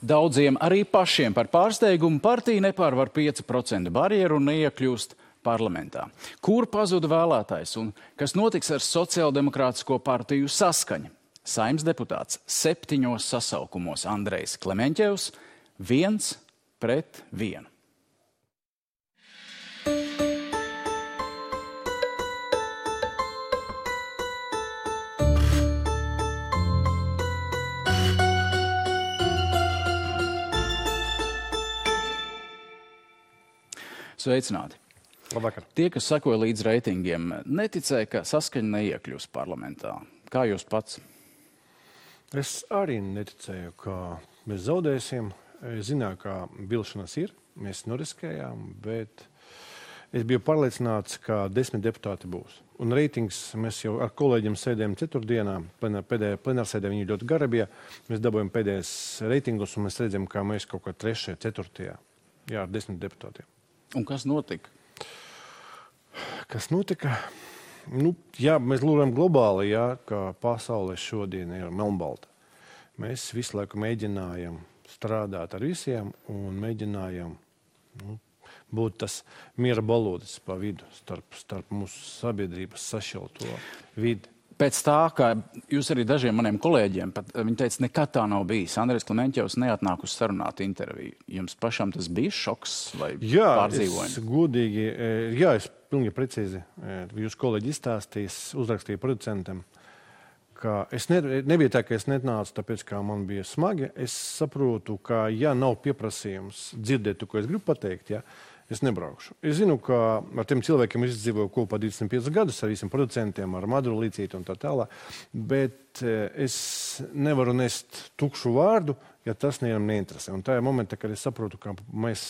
Daudziem arī pašiem par pārsteigumu partija nepārvar 5% barjeru un neiekļūst parlamentā. Kur pazuda vēlētājs un kas notiks ar sociāldemokrātisko partiju Saskaņa? Saeimas deputāts 7 sasaukumos Andrejs Klemeņķevs 1-1. Sveicināti! Labvakar. Tie, kas sekoja līdz reitingiem, neticēja, ka Saskaņa neiekļūs parlamentā. Kā jūs pats? Es arī neticēju, ka mēs zaudēsim. Es zināju, ka vilšanas ir, mēs noriskējām, bet es biju pārliecināts, ka 10 deputāti būs. Un reitings mēs jau ar kolēģiem sēdējām ceturtdienā, plenārsēdē viņi ļoti gara bija. Mēs dabūjām pēdējais reitingus un mēs redzam, ka mēs kaut kā 3., 4. ar 10 deputātiem. Un kas notika? Kas notika? Mēs lūrām globāli, ka pasaule šodien ir melnbalta. Mēs visu laiku mēģinājam strādāt ar visiem un mēģinājam būt tas miera balodis pa vidu starp mūsu sabiedrības sašķelto vidi. Pēc tā, kā jūs arī dažiem maniem kolēģiem, viņi teica, nekad tā nav bijis. Andrejs Klemeņķevs neatnāk uz sarunātu interviju. Jums pašam tas bija šoks vai pārdzīvojumi? Es pilnīgi precīzi. Jūs kolēģi izstāstījis, uzrakstīja producentam, ka es nebija tā, ka es netnācu, tāpēc, kā man bija smagi. Es saprotu, ka, nav pieprasījums dzirdēt to, ko es gribu pateikt, es nebraukšu. Es zinu, ka ar tiem cilvēkiem es dzīvoju kopā 25 gadus, ar visiem producentiem, ar Maduru Līcīti un tā tālāk, bet es nevaru nest tukšu vārdu, ja tas nevienam neinteresē. Un tajā momentā, kad es saprotu, ka mēs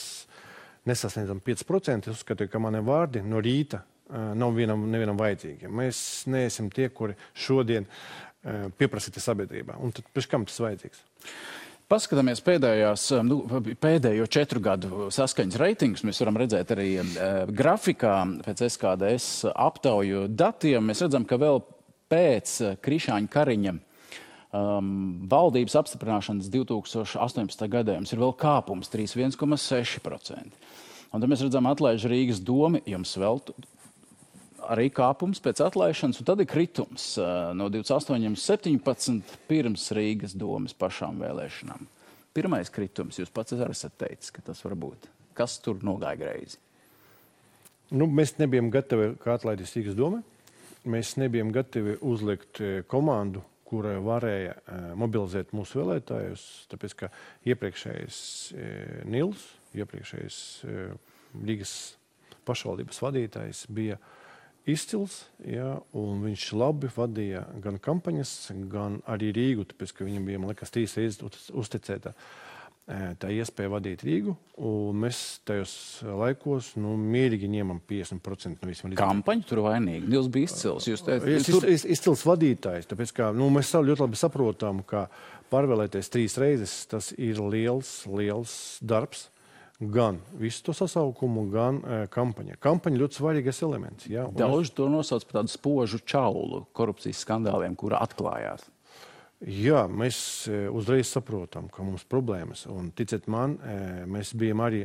nesasniedzam 5%, es uzskatu, ka mani vārdi no rīta nav nevienam vajadzīgi. Mēs neesam tie, kuri šodien pieprasīti sabiedrībā. Un tad pēc kam tas vajadzīgs? Paskatāmies pēdējo 4 gadu Saskaņas reitingus. Mēs varam redzēt arī grafikā pēc SKDS aptauju datiem. Mēs redzam, ka vēl pēc Krišāņa Kariņa valdības apstiprināšanas 2018. gadā jums ir vēl kāpums 1,6%. Un tad mēs redzam atlaiž Rīgas domi, jums vēl arī kāpums pēc atlaišanas, un tad ir kritums no 28,17 pirms Rīgas domas pašām vēlēšanām. Pirmais kritums, jūs pats arī esat teicis, ka tas var būt. Kas tur nogāja greizi? Mēs nebijām gatavi, kā atlaidīs Rīgas doma. Mēs nebijām gatavi uzlikt komandu, kura varēja mobilizēt mūsu vēlētājus, tāpēc, ka iepriekšējais Nils, iepriekšējais Rīgas pašvaldības vadītājs bija izcils, un viņš labi vadīja gan kampaņas, gan arī Rīgu, tāpēc, ka viņam bija, man liekas, 3 reizes uzticēta tā iespēja vadīt Rīgu, un mēs tajos laikos, mierīgi ņemam 50% no visiem. Kampaņu tur vainīgi. Nils bija izcils. Izcils vadītājs, tāpēc, ka mēs ļoti labi saprotam, ka pārvēlēties 3 reizes, tas ir liels darbs. Gan visu to sasaukumu, gan kampaņa. Kampaņa ļoti svarīgais elements. Daudz to nosauc par tādu spožu čaulu korupcijas skandāliem, kura atklājās. Mēs uzreiz saprotam, ka mums problēmas. Un ticiet man, mēs bijām arī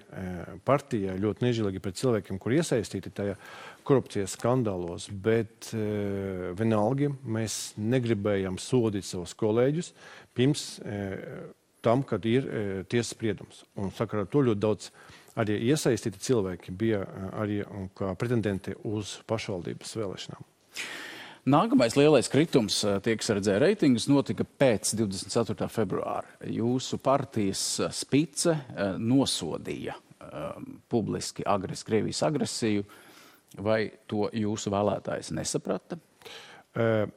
partijā ļoti nežēlīgi pret cilvēkiem, kur iesaistīti tajā korupcijas skandālos, bet vienalga mēs negribējām sodīt savus kolēģus pirms tam, kad ir tiesas spriedums. Un sakarā to ļoti daudz arī iesaistīti cilvēki bija arī kā pretendenti uz pašvaldības vēlēšanām. Nākamais lielais kritums, tie, kas redzēja reitingus, notika pēc 24. februāra. Jūsu partijas spice nosodīja publiski Krievijas agresiju. Vai to jūsu vēlētājs nesaprata?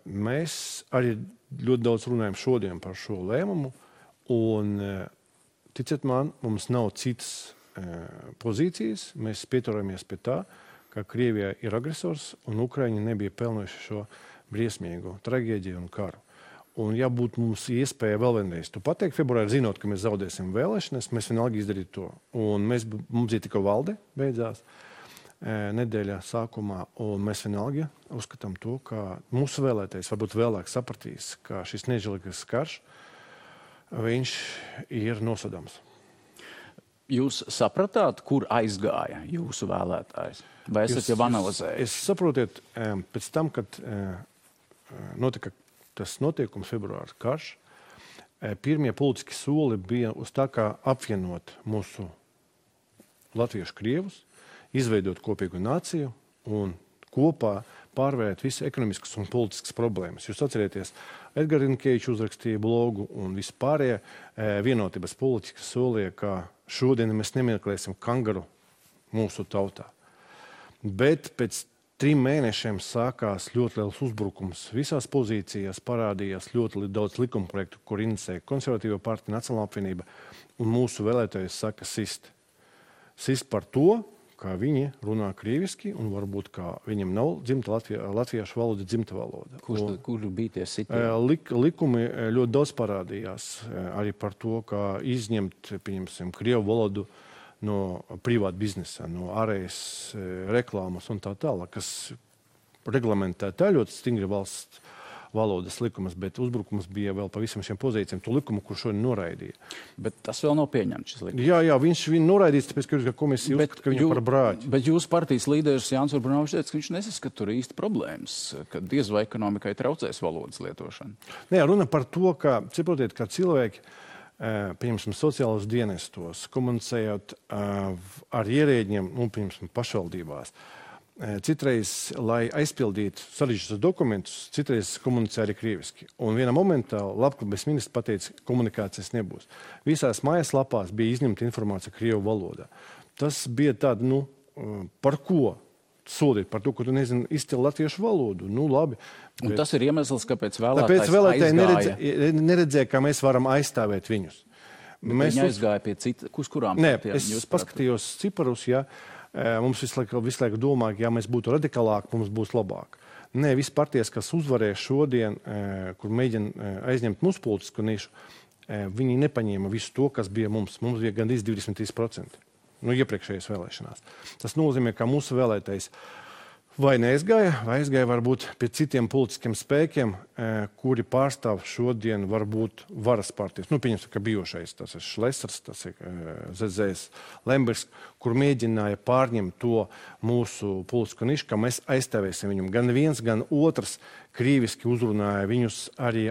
Mēs arī ļoti daudz runājam šodien par šo lēmumu. Un, ticiet man, mums nav citas pozīcijas. Mēs pieturamies pie tā, ka Krievija ir agresors un Ukraiņi nebija pelnojuši šo briesmīgo traģēdiju un karu. Un, ja būtu mums iespēja vēl vienreiz to pateikt februārī, zinot, ka mēs zaudēsim vēlēšanas, mēs vienalga izdarītu to. Un mums ir tikai valde beidzās nedēļā sākumā, un mēs vienalga uzskatām to, ka mūsu vēlētājs varbūt vēlāk sapratīs, ka šis nežēlīgais karš viņš ir nosodāms. Jūs sapratāt, kur aizgāja jūsu vēlētājs? Vai esat jau analizējis? Es saprotiet, pēc tam, kad notika tas notiekums februārs karš, pirmie politiski soli bija uz tā kā apvienot mūsu latviešu krievus, izveidot kopīgu nāciju un kopā pārvērt visu ekonomiskas un politiskas problēmas. Jūs atcerieties, Edgars Rinkēvičs uzrakstīja blogu un vispārējie vienotības politikas solīja, ka šodien mēs nemeklēsim kangaru mūsu tautā. Bet pēc 3 mēnešiem sākās ļoti liels uzbrukums. Visās pozīcijās parādījās ļoti daudz likumprojektu, kur inicēja Konservatīvo partiju, Nacionālā apvienība, un mūsu vēlētājs saka sist. Sist par to, kā viņi runā krieviski, un varbūt kā viņam nav dzimta latviešu valoda, dzimta valoda. Kur bija tie sitieni? Likumi ļoti daudz parādījās arī par to, kā izņemt, pieņemsim, krievu valodu no privāta biznesa, no ārējas reklāmas un tā tālāk, kas reglamentē tā ļoti stingri valsts valodas likumas, bet uzbrukums bija vēl pa visam šiem pozīcijiem, to likumu, kur šodien noraidīja. Bet tas vēl nav pieņemts, šis likums. Jā, viņš noraidīts, tāpēc, ka komisija uzskata, ka viņu par brāķi. Bet jūsu partijas līderis Jānis Urbanovičs teica, ka viņš nesaskata tur īsti problēmas, ka diez vai ekonomikai traucēs valodas lietošana. Nē, runa par to, ka, saprotiet, ka cilvēki, pieņemsim, sociālos dienestos, komunicējot ar ierēģiem, pieņemsim, pašvaldībās, citreiz, lai aizpildītu sarežģītus dokumentus, citreiz komunicē arī krieviski. Un vienā momentā labklājības ministrs pateica, ka komunikācijas nebūs. Visās mājaslapās bija izņemta informācija krievu valodā. Tas bija tāda, par ko sodīt? Par to, ka tu nezini izcili latviešu valodu. Labi. Un tas ir iemesls, kāpēc vēlētājs aizgāja. Neredzēja, kā mēs varam aizstāvēt viņus. Viņi aizgāja pie kurām partijām? Es paskatījos ciparus, mums visu laiku domā, ka, ja mēs būtu radikālāki, mums būs labāk. Nē, visi partijas, kas uzvarēja šodien, kur mēģina aizņemt mūsu politisku nišu, viņi nepaņēma visu to, kas bija mums. Mums bija gandrīz 23%. Iepriekšējās vēlēšanās. Tas nozīmē, ka mūsu vēlētājs vai neaizgāja, vai aizgāja varbūt pie citiem politiskiem spēkiem, kuri pārstāv šodien varbūt varas partijas. Pieņemsim, ka bijušais, tas ir Šlesers, tas ir ZZS Lembergs, kur mēģināja pārņemt to mūsu politisko nišu, ka mēs aizstāvēsim viņam. Gan viens, gan otrs krīviski uzrunāja viņus arī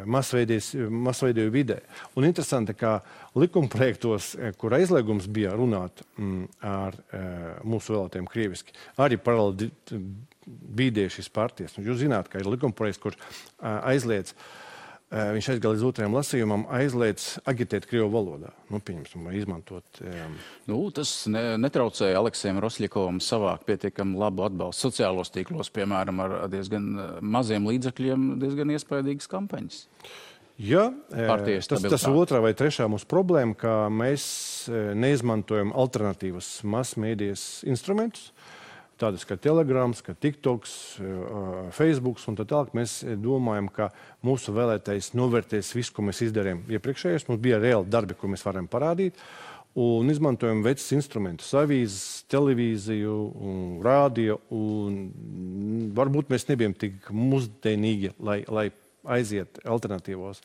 masveidēju vidē. Un interesanti, ka likumprojektos, kur aizliegums bija runāt ar mūsu vēlētājiem krīviski, arī paralēli bīdēja šīs partijas. Jūs zināt, ka ir likumprojekts, kur aizliedz, viņš aizgāja līdz 2. lasījumam, aizliedz agitēt krievu valodā. Pieņemsim, izmantot. Tas netraucēja Aleksējam Rosļakovam savākt pietiekami labu atbalstu sociālos tīklos, piemēram, ar diezgan maziem līdzekļiem, diezgan iespaidīgas kampaņas. Jā, tas otrā vai trešā mūsu problēma, ka mēs neizmantojam alternatīvas masmēdijas instrumentus, tādas kā Telegrams, kā TikToks, Facebooks un tā tālāk. Mēs domājam, ka mūsu vēlētājs novērtēs visu, ko mēs izdarījām iepriekšējos. Mums bija reāli darbi, ko mēs varam parādīt. Un izmantojam vecus instrumentus, avīzes, televīziju, rādio. Un varbūt mēs nebijam tik mūsdienīgi, lai aiziet alternatīvos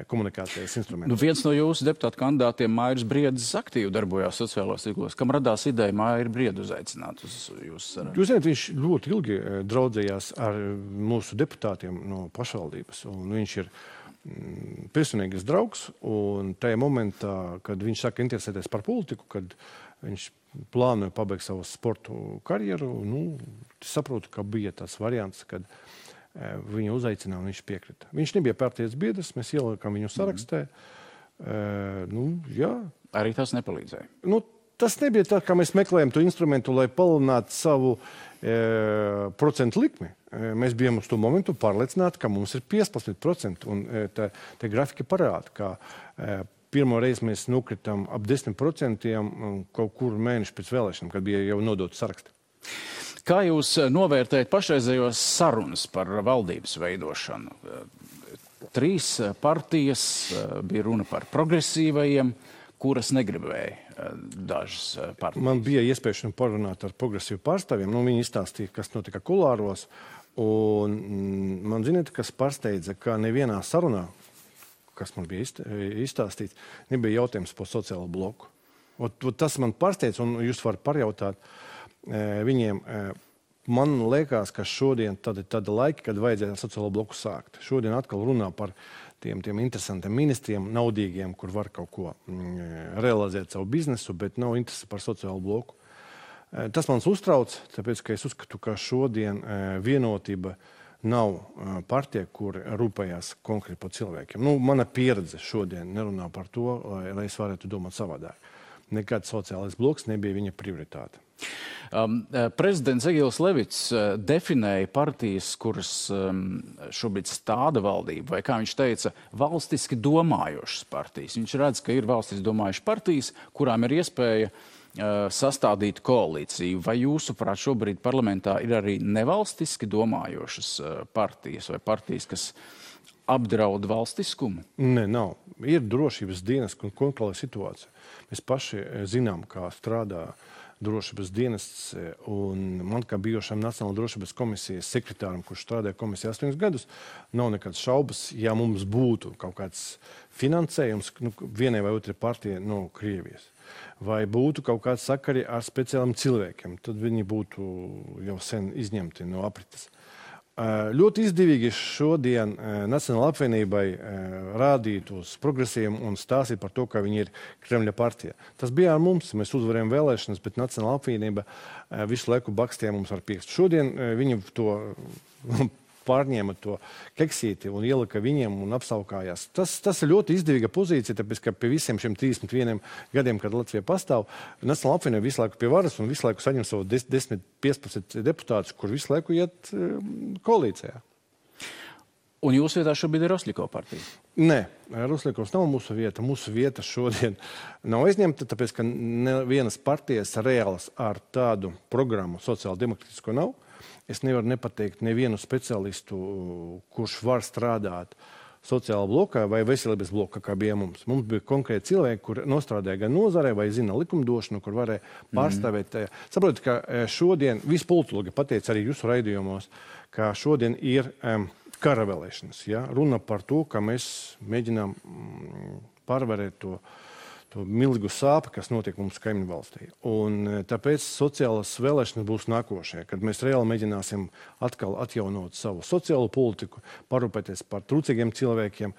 komunikācijas instrumentus. Viens no jūsu deputātu kandidātiem, Mairis Briedis, aktīvi darbojās sociālos tīklos. Kam radās ideja Mairu Briedu uzaicināt uz jūsu sarunu? Jūs zināt, viņš ļoti ilgi draudzējās ar mūsu deputātiem no pašvaldības. Un viņš ir personīgais draugs. Un tajā momentā, kad viņš saka interesēties par politiku, kad viņš plānoja pabeigt savu sportu karjeru, saprotu, ka bija tas variants, kad viņu uzaicināja un viņš piekrita. Viņš nebija partijas biedrs, mēs ielikām viņu sarakstē. Jā. Arī tas nepalīdzēja? Tas nebija tā, kā mēs meklējam to instrumentu, lai palielinātu savu procentu likmi. Mēs bijām uz to momentu pārliecināti, ka mums ir 15%. Un te grafika parāda, ka pirmo reizi mēs nokritām ap 10% kaut kur mēnešu pēc vēlēšanām, kad bija jau nodot saraksti. Kā jūs novērtējat pašreizējos sarunas par valdības veidošanu? 3 partijas, bija runa par progresīvajiem, kuras negribēja dažas partijas. Man bija iespēja parunāt ar progresīvu pārstāvjiem. Viņi izstāstīja, kas notika kulāros. Un man ziniet, kas pārsteidza, ka nevienā sarunā, kas man bija izstāstīts, nebija jautājums par sociālo bloku. Tas man pārsteidz, un jūs varat parjautāt viņiem. Man liekas, ka šodien tāda laika, kad vajadzēja ar sociālo bloku sākt. Šodien atkal runā par tiem interesantiem ministriem, naudīgiem, kur var kaut ko realizēt savu biznesu, bet nav interesi par sociālo bloku. Tas mans uztrauc, tāpēc, ka es uzskatu, ka šodien vienotība nav partija, kur rūpējās konkrēti par cilvēkiem. Mana pieredze šodien nerunā par to, lai es varētu domāt savādāk. Nekad sociālais bloks nebija viņa prioritāte. Prezidents Egils Levits definēja partijas, kuras šobrīd stāda valdību, vai, kā viņš teica, valstiski domājošas partijas. Viņš redz, ka ir valstiski domājušas partijas, kurām ir iespēja sastādīt koalīciju. Vai jūsuprāt šobrīd parlamentā ir arī nevalstiski domājošas partijas vai partijas, kas apdraud valstiskumu? Nē, nav. Ir drošības dienas un kontrolē situācija. Mēs paši zinām, kā strādā drošības dienests, un man kā bijušam Nacionālā drošības komisijas sekretāram, kurš strādāja komisijā 8 gadus, nav nekāds šaubas, ja mums būtu kaut kāds finansējums vienai vai otrai partijai no Krievijas, vai būtu kaut kāds sakari ar speciāliem cilvēkiem, tad viņi būtu jau sen izņemti no aprites. Ļoti izdevīgi šodien Nacionālajai apvienībai rādīt uz progresiem un stāstīt par to, ka viņi ir Kremļa partija. Tas bija ar mums, mēs uzvarējām vēlēšanas, bet Nacionālā apvienība visu laiku bakstīja mums ar pirkstu. Šodien viņi to pārņēma to keksīti un ielika viņiem un apsaukājās. Tas ir ļoti izdevīga pozīcija, tāpēc, ka pie visiem šiem 31 gadiem, kad Latvija pastāv, Nacionālā apvienība visu laiku pie varas un visu laiku saņem savu 10-15 deputātus, kur visu laiku iet koalīcijā. Un jūsu vietā šobrīd ir Rosļiko partija? Nē, Rosļikovs nav mūsu vieta. Mūsu vieta šodien nav aizņemta, tāpēc, ka nevienas partijas reālas ar tādu programmu sociāldemokrātisko nav. Es nevaru nepateikt nevienu speciālistu, kurš var strādāt sociālā blokā vai veselības blokā, kā bija mums. Mums bija konkrēti cilvēki, kur nostrādāja gan nozarē vai zina likumdošanu, kur varēja pārstāvēt. Saprotiet, ka šodien visi politologi pateica arī jūsu raidījumos, ka šodien ir kara vēlēšanas. Ja? Runa par to, ka mēs mēģinām pārvarēt to milzīgu sāpi, kas notiek mums kaimiņu valstī. Un tāpēc sociālas vēlēšanas būs nākošie, kad mēs reāli mēģināsim atkal atjaunot savu sociālo politiku, parūpēties par trūcīgiem cilvēkiem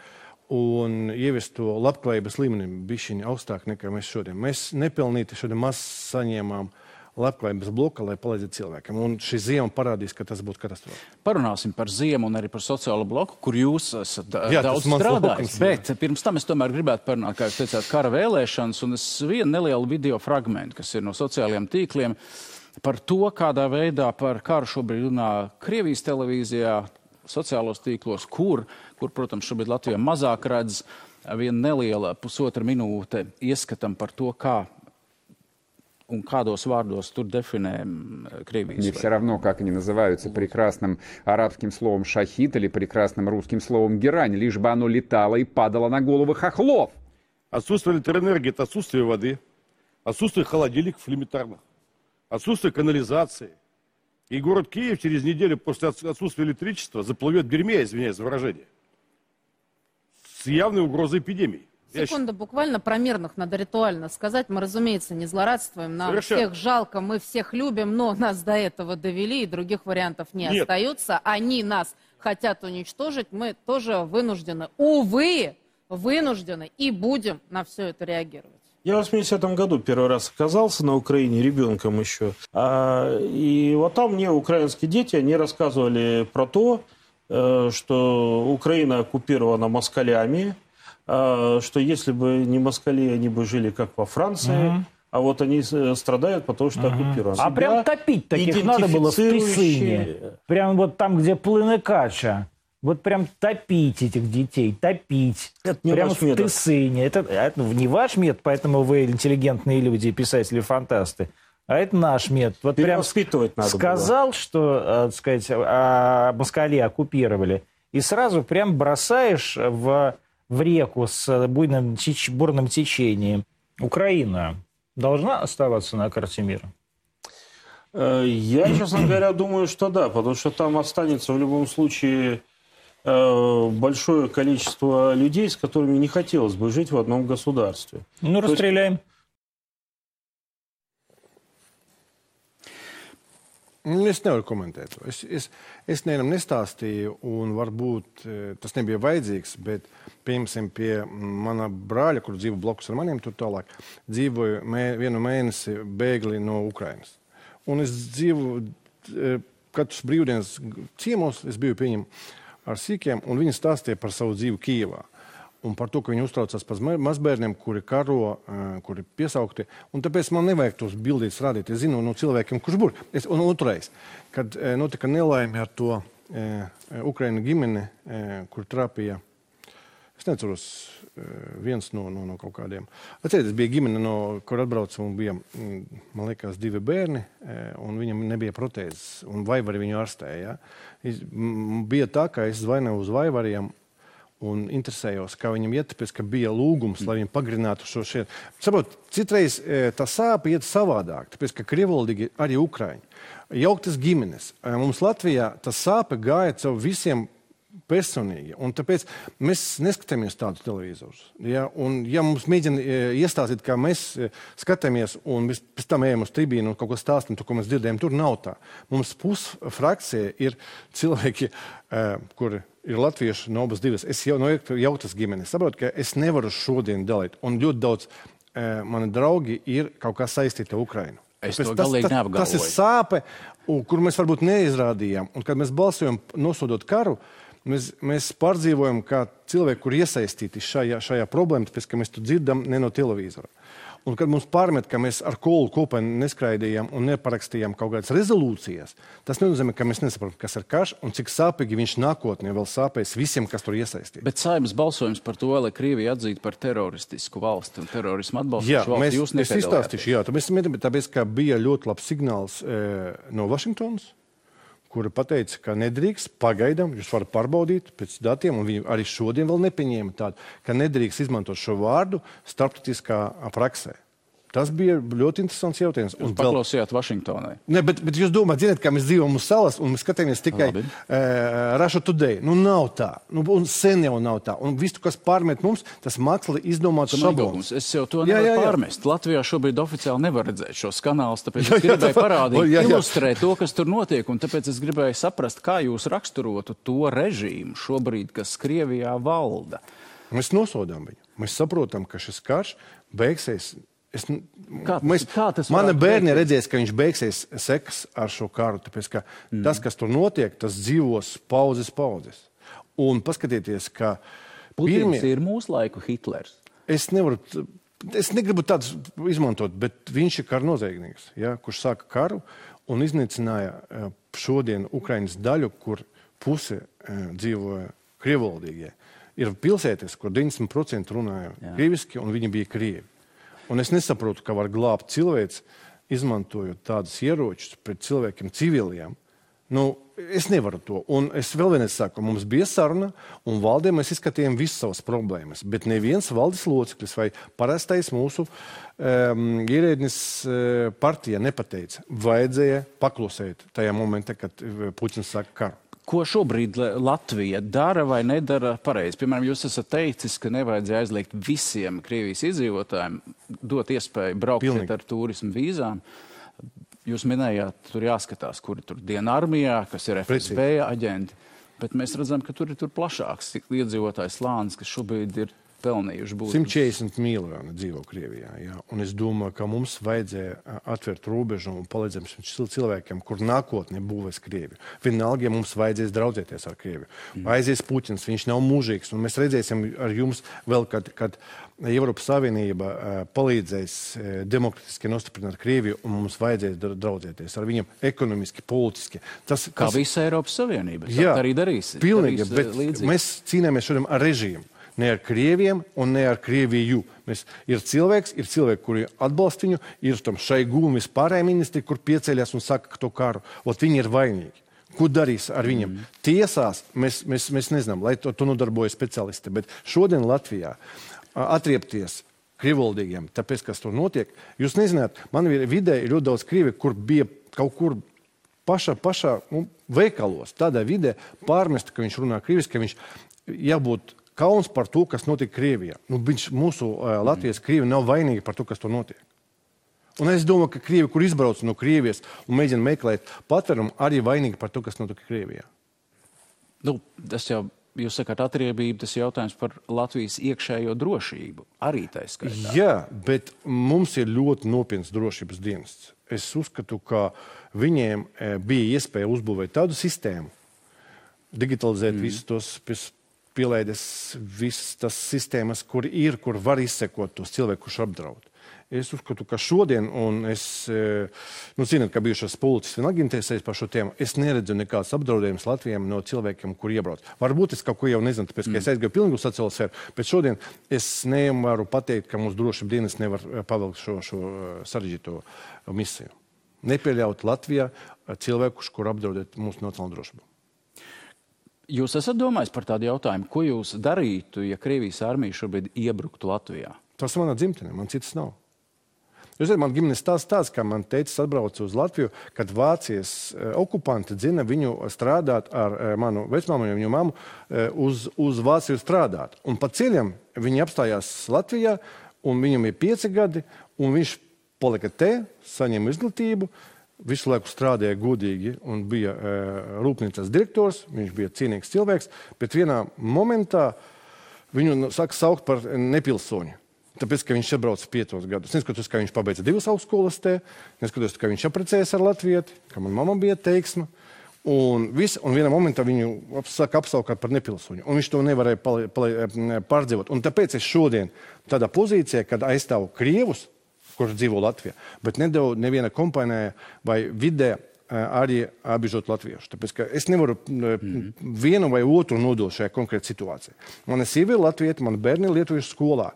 un ieviest to labklājības līmeni bišķiņi augstāk nekā mēs šodien. Mēs nepilnīti šodien maz saņēmām labklājības bloka, lai palīdzētu cilvēkiem. Un šī ziema parādīs, ka tas būtu katastrofa. Parunāsim par ziemu un arī par sociālo bloku, kur jūs esat daudz strādājis. Bet pirms tam es tomēr gribētu parunāt, kā jūs teicāt, kara vēlēšanas, un es vienu nelielu video fragmentu, kas ir no sociālajiem tīkliem, par to, kādā veidā par karu šobrīd runā Krievijas televīzijā, sociālos tīklos, kur, protams, šobrīd Latvijā mazāk redz, viena neliela 1,5 minūte ieskatam par to, kā un kādos vārdos tur definē Kriевijas. Мне все равно, как они называются, прекрасным арабским словом «шахид» или прекрасным русским словом «герань», лишь бы оно летало и падало на головы хохлов. Отсутствие электроэнергии – это отсутствие воды, отсутствие холодильников элементарных, отсутствие канализации. И город Киев через неделю после отсутствия электричества заплывет в дерьме, извиняюсь за выражение, с явной угрозой эпидемии. Секунда, буквально про мирных надо ритуально сказать. Мы, разумеется, не злорадствуем, нам всех жалко, мы всех любим, но нас до этого довели, и других вариантов не остается. Они нас хотят уничтожить, мы тоже вынуждены, увы, вынуждены и будем на все это реагировать. Я в 80-м году первый раз оказался на Украине, ребенком еще. И вот там мне украинские дети, они рассказывали про то, что Украина оккупирована москалями, что если бы не москали, они бы жили как во Франции, а вот они страдают, потому что оккупированы. А прям топить таких надо было в Тысыне. Прям вот там, где плыны Кача. Вот прям топить этих детей, топить. Это не прям ваш в метод. Тысыне. Это не ваш метод, поэтому вы интеллигентные люди, писатели-фантасты. А это наш метод. Вот прям сказал, было. Что, так сказать, москали оккупировали, и сразу прям бросаешь в реку с бурным течением. Украина должна оставаться на карте мира? Я, честно говоря, думаю, что да, потому что там останется в любом случае большое количество людей, с которыми не хотелось бы жить в одном государстве. Ну, расстреляем. Es nevaru komentēt to. Es nevienam nestāstīju, un varbūt tas nebija vajadzīgs, bet, piemēram, pie mana brāļa, kur dzīvo blakus ar maniem, tur tālāk, dzīvoju vienu mēnesi bēgli no Ukrainas. Un es dzīvoju katrs brīvdienas ciemos, es biju pie viņiem ar sīkiem, un viņi stāstīja par savu dzīvi Kijevā. Un par to, ka viņi uztraucās par mazbērniem, kuri karo, kuri piesaukti. Un tāpēc man nevajag tos bildītas rādīt. Es zinu no cilvēkiem, kurš būr. Un otrais, kad notika nelaime ar to Ukraina ģimeni, kur trāpīja, es neceros viens no kaut kādiem. Atcerieties, bija ģimene, kur atbrauca un bija, man liekas, 2 bērni, un viņam nebija protēzes, un vaivari viņu ārstēja. Bija tā, ka es zvaināju uz vaivariem, un interesējos, kā viņam iet, tāpēc, ka bija lūgums, lai viņi pagrinātu šo šeit. Saprot, citreiz tā sāpe iet savādāk, tāpēc, ka krievalodīgi arī Ukraiņi. Jauktas ģimenes. Mums Latvijā tā sāpe gāja caur visiem personīgi, un tāpēc mēs neskatāmies tādu televizorus. Ja? Un ja mums mēģina iestāstīt, kā mēs skatāmies, un mēs pēc tam ejam uz tribīnu un kaut ko stāstam, to, ko mēs dzirdējam, tur nav tā. Mums pusfrakcija ir cilvēki, kuri ir latvieši no abas divas. Es jau no jautas ģimenes saprotu, ka es nevaru šodien dalīt. Un ļoti daudz mani draugi ir kaut kā saistīti ar Ukrainu. Es to galīgi neapgalvoju. Tas ir sāpe, kur mēs varbūt neizrādījām. Un kad mēs balsojam nosodot karu, mēs pārdzīvojam kā cilvēki, kur iesaistīti šajā problēmā, tāpēc, ka mēs to dzirdam ne no televīzora. Un kad mums pārmet, ka mēs ar kolu kopā neskraidījām un neparakstījām kaut kādas rezolūcijas, tas nenozīmē, ka mēs nesaprotam, kas ir karš un cik sāpīgi viņš nākotnē vēl sāpēs visiem, kas tur iesaistīti. Bet Saeimas balsojums par to, lai Krievija atzītu par teroristisku valsti un terorismu atbalstošu valsti, jūs nepiedalījāties? Es izstāstīšu, tāpēc, ka bija ļoti labs signāls no Vašingtonas, kura pateica, ka nedrīkst pagaidām, jūs varat pārbaudīt pēc datiem, un viņi arī šodien vēl nepieņēma tādu, ka nedrīkst izmantot šo vārdu starptautiskā praksē. Tas bija ļoti interesants jautājums. Jūs paklausījāt Vašingtonai. Ne, bet jūs domājat, zināt, ka mēs dzīvojam uz salas un mēs skatāmies tikai Russia Today. Nu, nav tā. Un sen jau nav tā. Un visu, kas pārmet mums, tas mākslīgi izdomāts šablons. Es jau to nevaru pārmest. Latvijā šobrīd oficiāli nevar redzēt šos kanālus, tāpēc es gribēju parādīt, ilustrēt to, kas tur notiek, un tāpēc es gribēju saprast, kā jūs raksturotu to režīmu šobrīd, kas Krievijā valda. Mēs nosodām viņu. Mēs saprotam, ka šis karš beigsies. Mana bērni redzēs, ka viņš beigsies sekas ar šo karu, tāpēc, ka tas, kas tur notiek, tas dzīvos paudzes. Un paskatieties, ka Putins ir mūsu laiku Hitlers. Es negribu tādus izmantot, bet viņš ir karnoziegnieks, kurš sāka karu un iznīcināja šodien Ukrainas daļu, kur puse dzīvoja krievalodīgie. Ir pilsētas, kur 90% runāja krieviski, un viņi bija krievi. Un es nesaprotu, ka var glābt cilvēks, izmantojot tādus ieročus pret cilvēkiem civiliem. Nu, es nevaru to. Un es vēl vienreiz saku, mums bija saruna, un valdē mēs izskatījām visas savas problēmas. Bet neviens valdes loceklis vai parastais mūsu ierēdnis partija nepateica. Vajadzēja paklusēt tajā momentā, kad Puķins saka karu. Ko šobrīd Latvija dara vai nedara pareizi? Piemēram, jūs esat teicis, ka nevajadzēja aizliegt visiem Krievijas iedzīvotājiem dot iespēju braukt ar turismu vīzām. Jūs minējāt, tur jāskatās, kuri tur diena armijā, kas ir FSB aģenti, bet mēs redzam, ka tur ir plašāks iedzīvotājs slānis, kas šobrīd ir pelnījuši būt. 140 miljoni dzīvo Krievijā, jā. Un es domāju, ka mums vajadzēja atvērt robežu un palīdzēt cilvēkiem, kur nākotnē būvēs Krieviju. Vienalga, ja mums vajadzēs draudzēties ar Krieviju. Aizies Puķins, viņš nav mūžīgs, un mēs redzēsim ar jums vēl, kad Eiropas Savienība palīdzēs demokratiski nostiprināt Krieviju, un mums vajadzēs draudzēties ar viņiem ekonomiski, politiski. Kā visa Eiropas Savienība. Jā, arī darīs. Pilnīgi, bet mēs cīnāmies šodien ar režīmu. Ne ar Krieviem un ne ar Krieviju. Ir cilvēki, kuri atbalsta viņu, ir tam Šaigu un vispārējie ministri, kur pieceļas un saka, ka to karu. Viņi ir vainīgi. Ko darīs ar viņiem? Tiesās mēs nezinām, lai to nodarbojas speciālisti. Bet šodien Latvijā atriepties krievvaldīgiem, tāpēc, kas tur notiek, jūs nezināt, man vidē ir ļoti daudz krievi, kur bija kaut kur pašā veikalos, tādā vidē pārmest, ka viņš runā krieviski, ka viņš jābūt kauns par to, kas notiek Krievijā. Mūsu Latvijas krievi nav vainīgi par to, kas to notiek. Un es domāju, ka krievi, kur izbrauc no Krievijas un mēģina meklēt patvērumu, arī vainīgi par to, kas notiek Krievijā. Tas jau, jūs sakāt, atriebība, tas jautājums par Latvijas iekšējo drošību. Arī tā skaitā. Jā, bet mums ir ļoti nopietns drošības dienests. Es uzskatu, ka viņiem bija iespēja uzbūvēt tādu sistēmu, digitalizēt visus tos pielaides, visas tas sistēmas, kur var izsekot tos cilvēkus, kurš apdraud. Es uzskatu, ka šodien, un es, zināt, ka bijušas policis vienalga interesējas par šo tēmu, es neredzu nekāds apdraudējums Latvijam no cilvēkiem, kur iebrauc. Varbūt es kaut ko jau nezinu, tāpēc, ka es aizgāju pilnīgi uz sociālo sfēru, bet šodien es nevaru pateikt, ka mūsu drošības dienas nevar pavilkt šo sarežģīto misiju. Nepieļaut Latvijā cilvēkus, kur apdraudēt mūsu nacionālo drošību. Jūs esat domājis par tādu jautājumu, ko jūs darītu, ja Krievijas armija šobrīd iebruktu Latvijā? Tas manā dzimtenē, man citas nav. Jūs zināt, man ģimenes tāds, ka man teicis atbrauca uz Latviju, kad Vācijas okupanti dzina viņu strādāt ar manu vecmāmu un viņu mammu uz Vāciju strādāt. Un pa ceļam viņi apstājās Latvijā, un viņam ir 5 gadi, un viņš palika te, saņēma izglītību, visu laiku strādāja godīgi un bija rūpnīcas direktors, viņš bija cienīgs cilvēks, bet vienā momentā viņu saka saukt par nepilsoņu. Tāpēc, ka viņš atbrauca 5 gadus. Neskatoties, ka viņš pabeidza 2 augstskolas te, neskatoties, ka viņš apprecējas ar latvieti, ka man mamma bija teiksma. Un vienā momentā viņu saka apsaukāt par nepilsoņu. Un viņš to nevarēja pārdzīvot. Un tāpēc es šodien tādā pozīcijā, kad aizstāvu krievus, kurš dzīvo Latvijā, bet nedevu neviena kompānijā vai vidē arī apbiežot latviešu. Tāpēc, ka es nevaru vienu vai otru nodot šajā konkrētā situācijā. Mana sieva ir latvieta, man bērni ir lietuviešu skolā.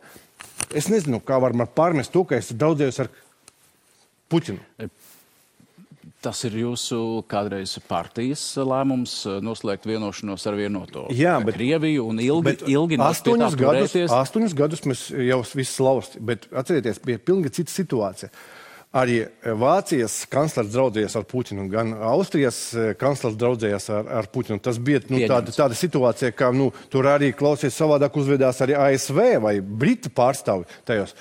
Es nezinu, kā var man pārmest to, ka es draudzējos ar Puķinu. Tas ir jūsu kādreiz partijas lēmums noslēgt vienošanos ar vienoto Krieviju un ilgi turēties. 8 gadus mēs jau viss lausti, bet atcerieties, bija pilnīgi cita situācija. Arī Vācijas kanclers draudzējās ar Puķinu, gan Austrijas kanclers draudzējās ar Puķinu. Tas bija tāda situācija, ka tur arī klausies savādāk uzvedās arī ASV vai Britu pārstāvi tajos.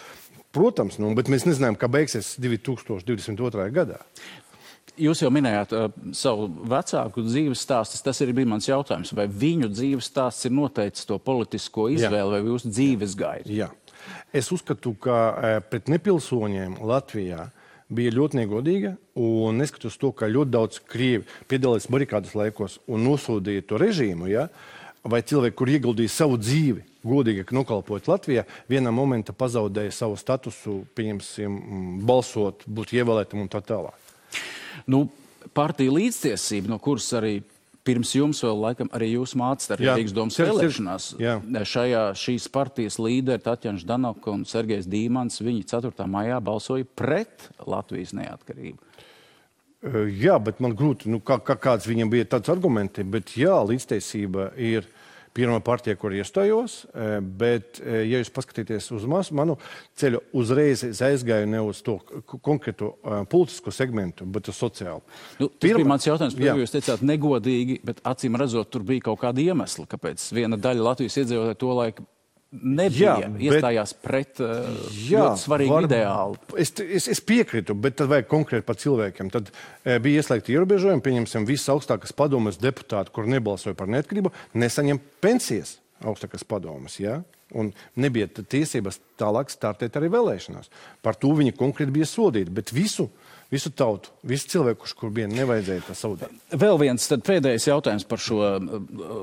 Protams, bet mēs nezinājām, kā beigsies 2022. gadā. Jūs jau minējāt savu vecāku dzīves stāstu. Tas arī bija mans jautājums. Vai viņu dzīves stāsts ir noteicis to politisko izvēli vai jūsu dzīves gaidu? Jā. Es uzskatu, ka pret nepilsoņiem Latvijā bija ļoti negodīga, un neskatoties to, ka ļoti daudz krievi piedalījās barikādas laikos un nosodīja to režīmu, vai cilvēki, kur ieguldīja savu dzīvi, godīgi nokalpojot Latvijā, vienā momentā pazaudēja savu statusu, pieņemsim, balsot, būt ievēlētam un tā tālāk. Partija līdztiesība, no kuras arī pirms jums vēl laikam arī jūs mācāt arī Rīgas domas vēlēšanās. Šīs partijas līderi Tatjana Ždanoka un Sergejs Dīmans, viņi 4. maijā balsoja pret Latvijas neatkarību. Jā, bet man grūti, kāds viņam bija tāds argumenti, bet līdztiesība ir pirmā partija, kur iestājos, bet, ja jūs paskatīties uz manu ceļu, uzreiz aizgāju ne uz to konkrēto politisko segmentu, bet uz sociālu. Tas bija mans jautājums, par jūs teicāt negodīgi, bet acīm redzot, tur bija kaut kāda iemesla, kāpēc viena daļa Latvijas iedzīvotāju to laiku iestājās pret ļoti svarīgu ideālu. Es piekrītu, bet tad vajag konkrēti par cilvēkiem. Tad bija ieslēgti ierobežojumi, pieņemsim, visas augstākas padomes deputāti, kur nebalsoja par neatkarību, nesaņem pensijas augstākas padomes, un nebija tiesības tālāk startēt arī vēlēšanās. Par to viņi konkrēti bija sodīti, bet visu tautu, visu cilvēku, kur bija nevajadzēja tā saudēt. Vēl viens tad pēdējais jautājums par šo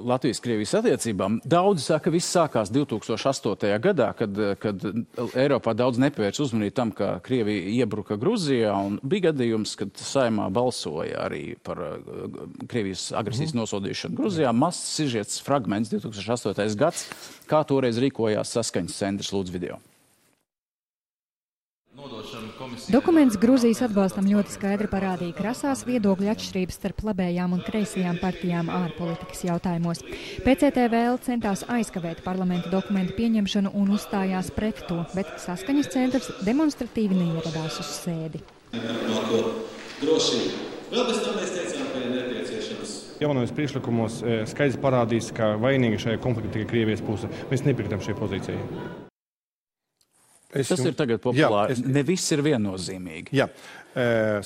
Latvijas-Krievijas attiecībām. Daudzi saka, ka viss sākās 2008. gadā, kad Eiropā daudz nepievērs uzmanību tam, ka Krievija iebruka Gruzijā, un bija gadījums, kad Saeimā balsoja arī par Krievijas agresijas nosodīšanu Gruzijā. Mazs sižets fragments 2008. gads, kā toreiz rīkojās saskaņas centrs, lūdzu video. Dokuments Gruzijas atbalstam ļoti skaidri parādīja krasās viedokļu atšķirības starp labējām un kreisajām partijām ārpolitikas jautājumos. PCTVL centās aizkavēt parlamenta dokumentu pieņemšanu un uzstājās pret to, bet saskaņas centrs demonstratīvi neieradās uz sēdi. Vēl bez tam mēs teicām, jaunajos priekšlikumos skaidrs parādīs, ka vainīgi šajā konfliktā tikai Krievijas puse. Mēs nepiekrītam šai pozīcijai. Tas ir tagad populāri. Ne viss ir viennozīmīgi. Jā.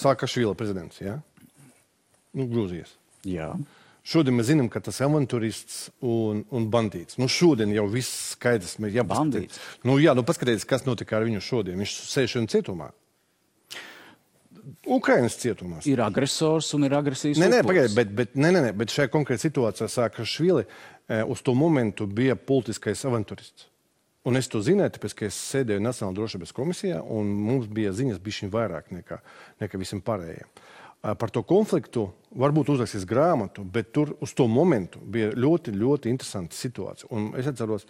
Saakašvili prezidents, jā? Grūzijas. Jā. Šodien mēs zinām, ka tas ir avantūrists un bandīts. Šodien jau viss skaidrs. Bandīts? Paskatieties, kas notika ar viņu šodien. Viņš sēž šodien cietumā. Ukrainas cietumās. Ir agresors un ir agresijas upuris. Bet šajā konkrētā situācijā Saakašvili uz to momentu bija politiskais avantūrists. Un es to zināju, tāpēc, ka es sēdēju Nacionālajā drošības komisijā, un mums bija ziņas bišķiņ vairāk nekā visiem pārējiem. Par to konfliktu varbūt uzrakstīs grāmatu, bet tur uz to momentu bija ļoti, ļoti interesanta situācija. Un es atceros,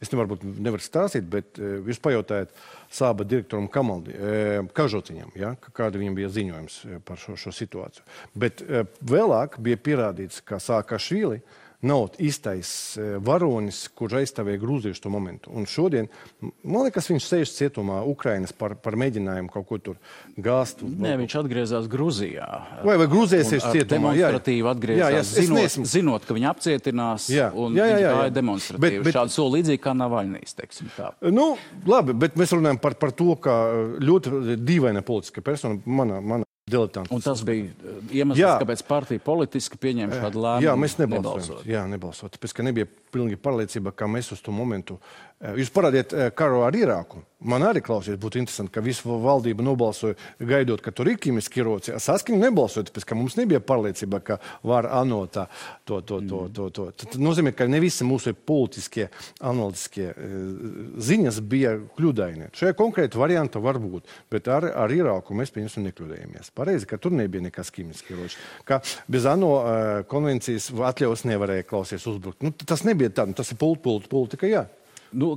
es nevaru stāstīt, bet jūs pajautājat Sāba direktoram Kažociņam, ja, kāda viņam bija ziņojums par šo situāciju. Bet vēlāk bija pierādīts, ka Saakašvili nav īstais varonis, kurš aizstāvēja grūziešu to momentu. Un šodien, man liekas, viņš sēž cietumā Ukrainas par mēģinājumu kaut ko tur gāzt. Nē, viņš atgriezās Gruzijā. Vai Gruzijā sēž cietumā? Demonstratīvi atgriezās, zinot, ka viņu apcietinās, un viņš gāja demonstratīvi. Šādu soli līdzīgi kā Navaļnīs, teiksim tā. Labi, bet mēs runājam par to, ka ļoti dīvaina politiska persona, mana diletanti. Un tas bija iemesls, kāpēc partija politiski pieņēma šādu lēmumu. Jā, mēs nebalsot. Tāpēc, ka nebija pilnīgi pārliecība, ka mēs uz to momentu. Jūs parādiet karu ar Irāku. Man arī klausies, būtu interesanti, ka visu valdību nobalsoja gaidot, ka tur ir ķimiski ieroci. Saskaņu nebalsoja, tāpēc, ka mums nebija pārliecība, ka var anot to. Tas nozīmē, ka ne visi mūsu politiskie, analītiskie ziņas bija kļūdaini. Šajā konkrēta varianta var būt, bet ar Irāku mēs pieņemsim nekļūdējamies. Pareizi, ka tur nebija nekas ķimiski ieroči. Ka bez ANO konvencijas atļaus nevarēja klausies uzbrukt. Tas nebija tā, tas ir politika, jā.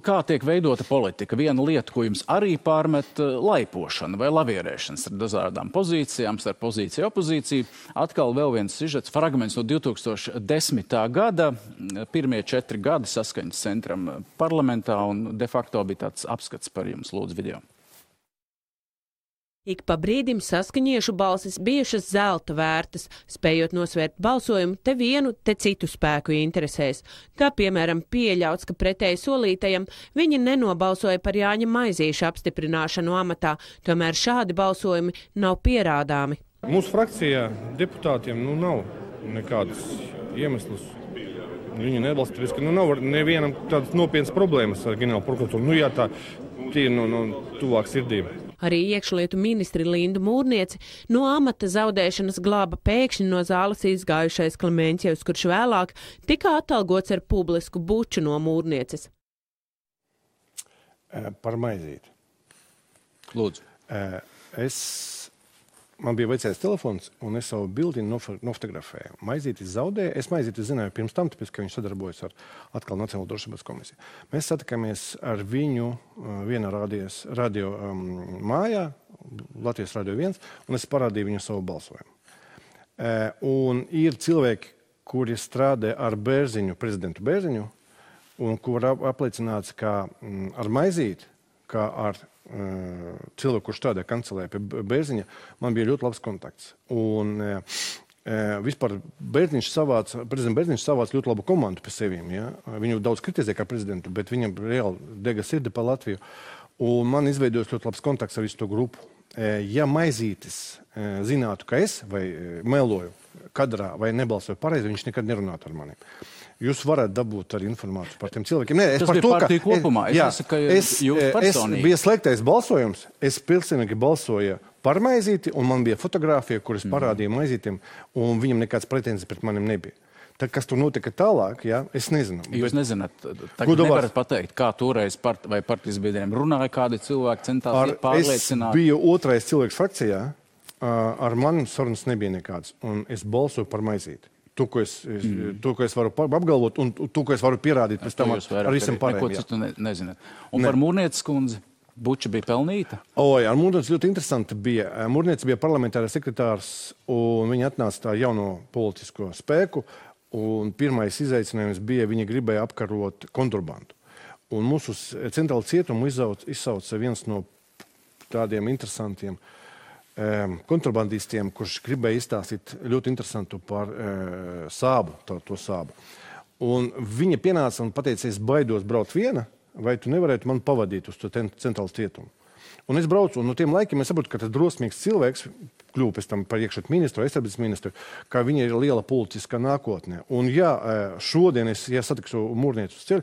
Kā tiek veidota politika? Viena lieta, ko jums arī pārmet, laipošana vai lavierēšanas ar dažādām pozīcijām, starp pozīciju opozīciju. Atkal vēl viens sižets, fragments no 2010. gada. Pirmie 4 gadi Saskaņas centram parlamentā, un de facto bija tāds apskats par jums, lūdzu, video. Ik pa brīdim saskaņiešu balsis bijušas zelta vērtas, spējot nosvērt balsojumu te vienu, te citu spēku interesēs. Kā piemēram pieļauts, ka pretēji solītajam viņi nenobalsoja par Jāņa Maizīša apstiprināšanu amatā, tomēr šādi balsojumi nav pierādāmi. Mūsu frakcijā deputātiem nav nekādas iemeslas. Viņi nebalsta, tāpēc, ka nav nevienam tādas nopietnas problēmas ar ģenerālu prokuratūru. Jā, tā ir tuvāk sirdīm. Arī iekšlietu ministri Lindu Mūrnieci no amata zaudēšanas glāba pēkšņi no zāles izgājušais Klemenķevs, kurš vēlāk tika atalgots ar publisku buču no Mūrnieces. Par Maizīti. Lūdzu. Man bija vecais telefons, un es savu bildi nofotografēju. Maizīti zaudēja. Es Maizīti zināju pirms tam, tāpēc, ka viņš sadarbojas ar atkal Nacionālo drošības komisiju. Mēs satikāmies ar viņu vienā radio mājā, Latvijas Radio 1, un es parādīju viņu savu balsojumu. Un ir cilvēki, kuri strādā ar Bērziņu, prezidentu Bērziņu, un kur apliecināts, ka ar Maizīti, kā ar cilvēku, kurš strādā kancelē pie Bērziņa, man bija ļoti labs kontakts. Un vispār prezidents Bērziņš savāca ļoti labu komandu pie sevīm. Ja? Viņu daudz kritizē kā prezidentu, bet viņam reāli dega sirdi pa Latviju. Un man izveidojas ļoti labs kontakts ar visu to grupu. Ja Maizītis zinātu, ka es vai meloju kadrā vai nebalsoju pareizi, viņš nekad nerunātu ar maniem. Jūs varat dabūt arī informāciju par tiem cilvēkiem. Nē, tas bija partija kopumā. Es bija slēgtais balsojums. Es pilnīgi balsoju par Maizīti, un man bija fotografija, kuras parādīja Maizītim, un viņam nekāds pretenzijas pret manim nebija. Tad, kas tur notika tālāk, jā, es nezinu. Jūs nezināt, tagad nevarat pateikt, kā toreiz vai partijas biedriem runāja, kādi cilvēki centās pārliecināt. Es biju otrais cilvēks frakcijā, ar manim sarunas nebija nekāds, un es balsoju par Maizīti. To, ko es varu apgalvot, un to, ko es varu pierādīt pēc tam ar visam pārējiem. Neko citu nezināt. Un par Mūrnieces kundzi, buča bija pelnīta? Ar Mūrnieci ļoti interesanti bija. Mūrnieci bija parlamentārais sekretārs, un viņa atnāca tā jauno politisko spēku, un pirmais izaicinājums bija, viņa gribēja apkarot kontrabandu. Un mūsu centrālu cietumu izsauca viens no tādiem interesantiem kontrabandistiem, kurš gribēja izstāstīt ļoti interesantu par sābu, to sābu. Un viņa pienāca un pateica, es baidos braukt viena, vai tu nevarētu man pavadīt uz to centrālu cietumu. Un es braucu, un no tiem laikiem es saprotu, ka tas drosmīgs cilvēks kļuva pēc tam par iekšļietu ministru, aizsardzības ministru, kā viņa ir liela politiskā nākotnē. Un ja šodien es satikšu mūrnieci uz ceļu,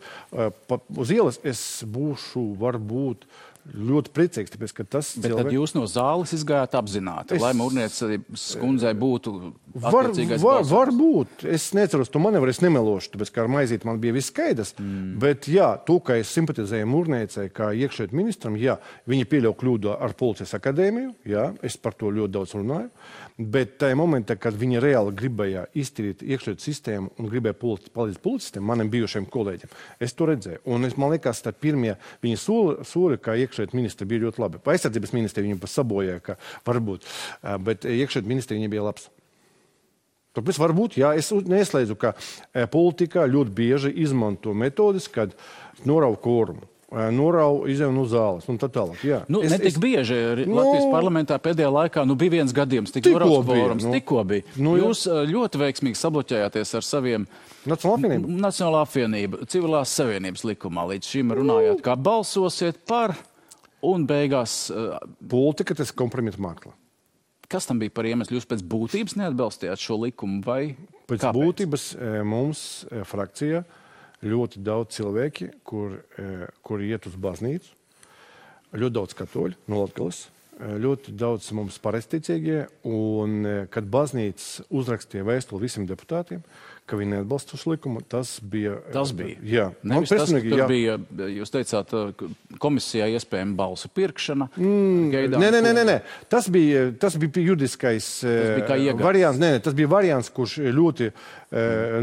uz ielas es būšu varbūt ļoti priecīgs, tāpēc, ka tas Bet tad jūs no zāles izgājāt apzināti, lai mūrniecības kundzei būtu attiecīgais balsojums? Varbūt. Es neceros to manevru, es nemelošu, tāpēc, ka ar maizīti man bija viss skaidrs. Bet jā, to, ka es simpatizēju mūrniecei kā iekšļietu ministram, jā, viņa pieļauj kļūdu ar policijas akadēmiju, jā, es par to ļoti daudz runāju. Bet tajā momentā, kad viņa reāli gribēja iztīrīt iekšļietu sistēmu un gribēja palīdzēt policistiem, maniem bijušiem kolēģiem, es to redzēju. Un man liekas, tā pirmie viņa soli, kā iekšļietu ministri bija ļoti labi. Aizsardzības ministri viņu pasabojāja, ka varbūt, bet iekšļietu ministri viņa bija labs. Tāpēc varbūt, jā, es neslēdzu, ka politikā ļoti bieži izmanto metodis, kad norauj kvorumu. Norau izēju no zāles un tā tālāk. Jā. Netik bieži Latvijas parlamentā pēdējā laikā bija viens gadījums, norauts kvorums, tikko bija. Jūs ļoti veiksmīgi sabloķējāties ar saviem Nacionālā apvienība, civilās savienības likumā. Līdz šim runājāt, kā balsosiet par un beigās... Politika, tas kompromita mākla. Kas tam bija par iemeslu? Jūs pēc būtības neatbalstījāt šo likumu vai pēc kāpēc? Būtības mums frakcijā ļoti daudz cilvēki, kur iet uz baznīcu, ļoti daudz katoļu no Latgales, ļoti daudz mums pareizticīgie, un kad baznīca uzrakstīja vēstuli visiem deputātiem, ka viņi neatbalsta šo likumu, tas bija... Tas bija? Jā. Nevis tas, ka tur bija, jūs teicāt, komisijā iespējama balsu pirkšana. Nē. Tas bija juridiskais variants. Nē, tas bija variants, kurš ļoti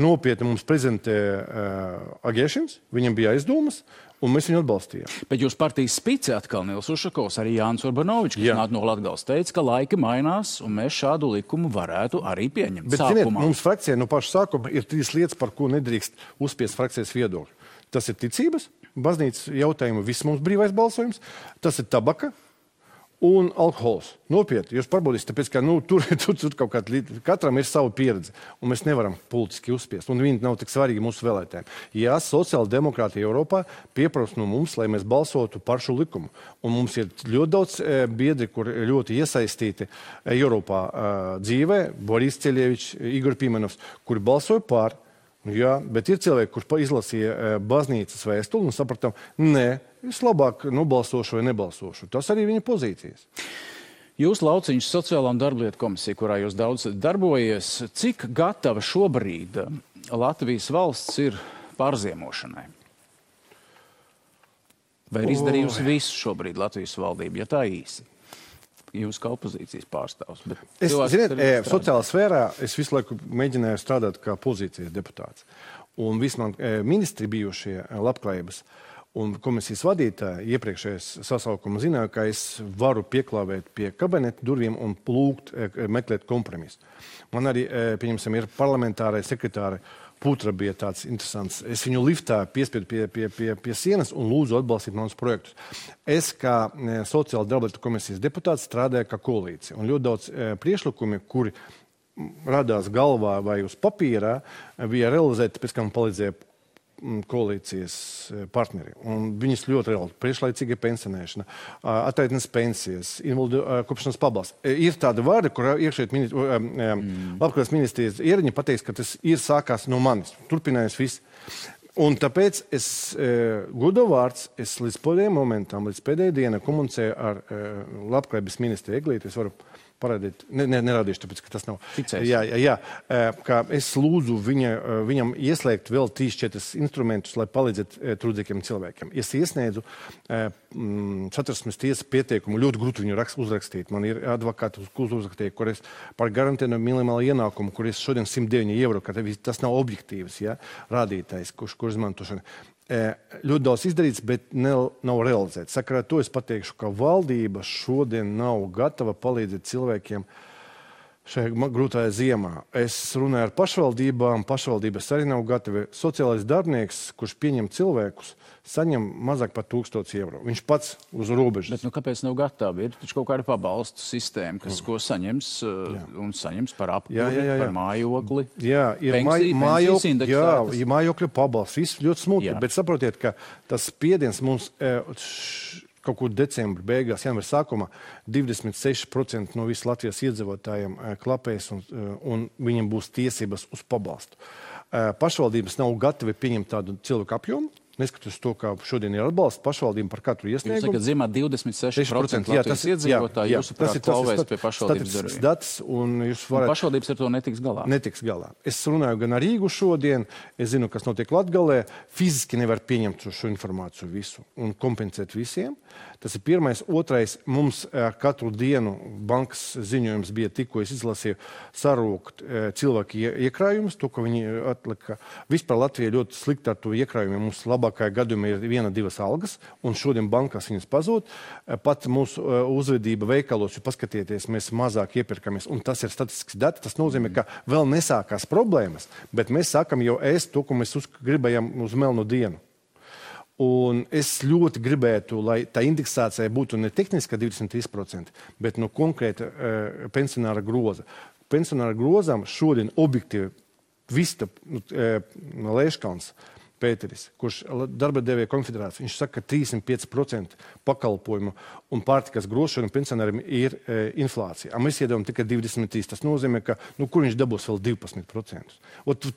nopietni mums prezentē Agēšins. Viņam bija aizdomas. Un mēs viņu atbalstījām. Bet jūs partijas spice atkal Nils Ušakovs, arī Jānis Urbanovičs, kas nāk no Latgales, teica, ka laiki mainās, un mēs šādu likumu varētu arī pieņemt. Bet, ziniet, mums frakcijā no paša sākuma ir 3 lietas, par ko nedrīkst uzspiest frakcijas viedokļu. Tas ir ticības, baznīcas jautājumu, viss mums brīvais balsojums, tas ir tabaka un alkohols. Nopietni, jūs pārbaudīsiet, tāpēc, ka tur kaut kāda, katram ir sava pieredze, un mēs nevaram politiski uzspiest, un viņi nav tik svarīgi mūsu vēlētājiem. Jā, sociāla demokrātija Eiropā pieprasa no mums, lai mēs balsotu par šo likumu. Un mums ir ļoti daudz biedri, kur ļoti iesaistīti Eiropā dzīvē, Boris Ceļevičs, Igor Pimenovs, kuri balsoja par. Jā, bet ir cilvēki, kurš izlasīja baznīcas vēstuli un sapratām, nē, es labāk nobalsošu vai nebalsošu. Tas arī viņa pozīcijas. Jūs Lauciņš sociālā un darblietu komisija, kurā jūs daudz darbojies, cik gatava šobrīd Latvijas valsts ir pārziemošanai? Vai ir izdarījusi visu šobrīd Latvijas valdība, ja tā īsi? Jūs kā opozīcijas pārstāvs. Sociālā sfērā es visu laiku mēģināju strādāt kā pozīcijas deputāts. Un visi man ministri bijušie labklājības un komisijas vadītāji iepriekšējais sasaukuma zināja, ka es varu pieklāvēt pie kabineta durvīm un lūgt meklēt kompromisu. Man arī, pieņemsim, ir parlamentārai sekretāri Putra bija tāds interesants. Es viņu liftā piespiedu pie sienas un lūdzu atbalstīt manus projektus. Es kā sociāla darblietu komisijas deputāts strādāju kā koalīcija. Un ļoti daudz priekšlikumi, kuri radās galvā vai uz papīrā, bija realizēti, pēc kā man palīdzēja koalīcijas partneri. Un viņas ļoti reāli. Priekšlaicīga pensionēšana, attaitnes pensijas, invalidu kopšanas pabalsts. Ir tāda vārda, kurā labklājības ministrijas ierēģi pateiks, ka tas ir sākās no manis. Turpinājās viss. Un tāpēc es godu vārds, es līdz pēdējiem momentam, līdz pēdējai dienai komunicēju ar labklājības ministru Eglīti. Es varu parādīt, nerādīšu, tāpēc, ka tas nav. Jā, kā es lūdzu viņam ieslēgt vēl 3-4 instrumentus, lai palīdzētu trūdzīgiem cilvēkiem. Es iesniedzu Satversmes tiesas pieteikumu, ļoti grūti viņu uzrakstīt. Man ir advokāti uzrakstīja, kur es par garantēnu minimālu ienākumu, kur es šodien 109 eiro, ka tas nav objektīvs, rādītājs, kur izmantošana. Ļoti daudz izdarīts, bet nav realizēts. Sakarā to es pateikšu, ka valdība šodien nav gatava palīdzēt cilvēkiem šajā grūtajā ziemā. Es runāju ar pašvaldībām, pašvaldības arī nav gatavi. Sociālais darbinieks, kurš pieņem cilvēkus, saņem mazāk par 1000 eiro. Viņš pats uz robežas. Bet kāpēc nav gatavi? Ir taču kaut kāda pabalstu sistēma, ko saņems un saņems par apkuri, par mājokli. Jā, ir mājokļa pabalsts. Viss ļoti smutki, bet saprotiet, ka tas spiediens mums kaut kur decembra beigās, janvāra sākumā 26% no visu Latvijas iedzīvotājiem klapēs un viņiem būs tiesības uz pabalstu. Pašvaldības nav gatavi pieņemt tādu cilvēku apjomu. Neskatoties to, kā šodien ir atbalsts pašvaldību par katru iesniegumu. Jūs sakat, ziemā 26% Latvijas iedzīvotāji jūsuprāt klauvēs pie pašvaldības durvīm. Un pašvaldības ar to netiks galā? Netiks galā. Es runāju gan ar Rīgu šodien, es zinu, kas notiek Latgalē. Fiziski nevar pieņemt šo informāciju visu un kompensēt visiem. Tas ir pirmais. Otrais, mums katru dienu bankas ziņojums bija tikko, es izlasīju, sarūkt cilvēku iekrājumus, to, ko viņi atlika. Vispār Latvija ļoti slikti ar to iekrājumiem. Mums labākajā gadījumā ir 1-2 algas, un šodien bankās viņas pazūd. Pat mūsu uzvedība veikalos, jo paskatieties, mēs mazāk iepirkamies, un tas ir statistisks dati. Tas nozīmē, ka vēl nesākās problēmas, bet mēs sākam jau ēst to, ko mēs gribējam uz melnu dienu. Un es ļoti gribētu, lai tā indeksācija būtu ne tehniska 23%, bet no konkrēta pensionāra groza. Pensionāra grozām šodien objektīvi Vista Lēškauns Pēteris, kurš darba devēja konfederācija, viņš saka, ka 35% pakalpojumu un pārtikas grošanu pensionāriem ir inflācija. Mēs iedevām tikai 23%. Tas nozīmē, ka kur viņš dabūs vēl 12%.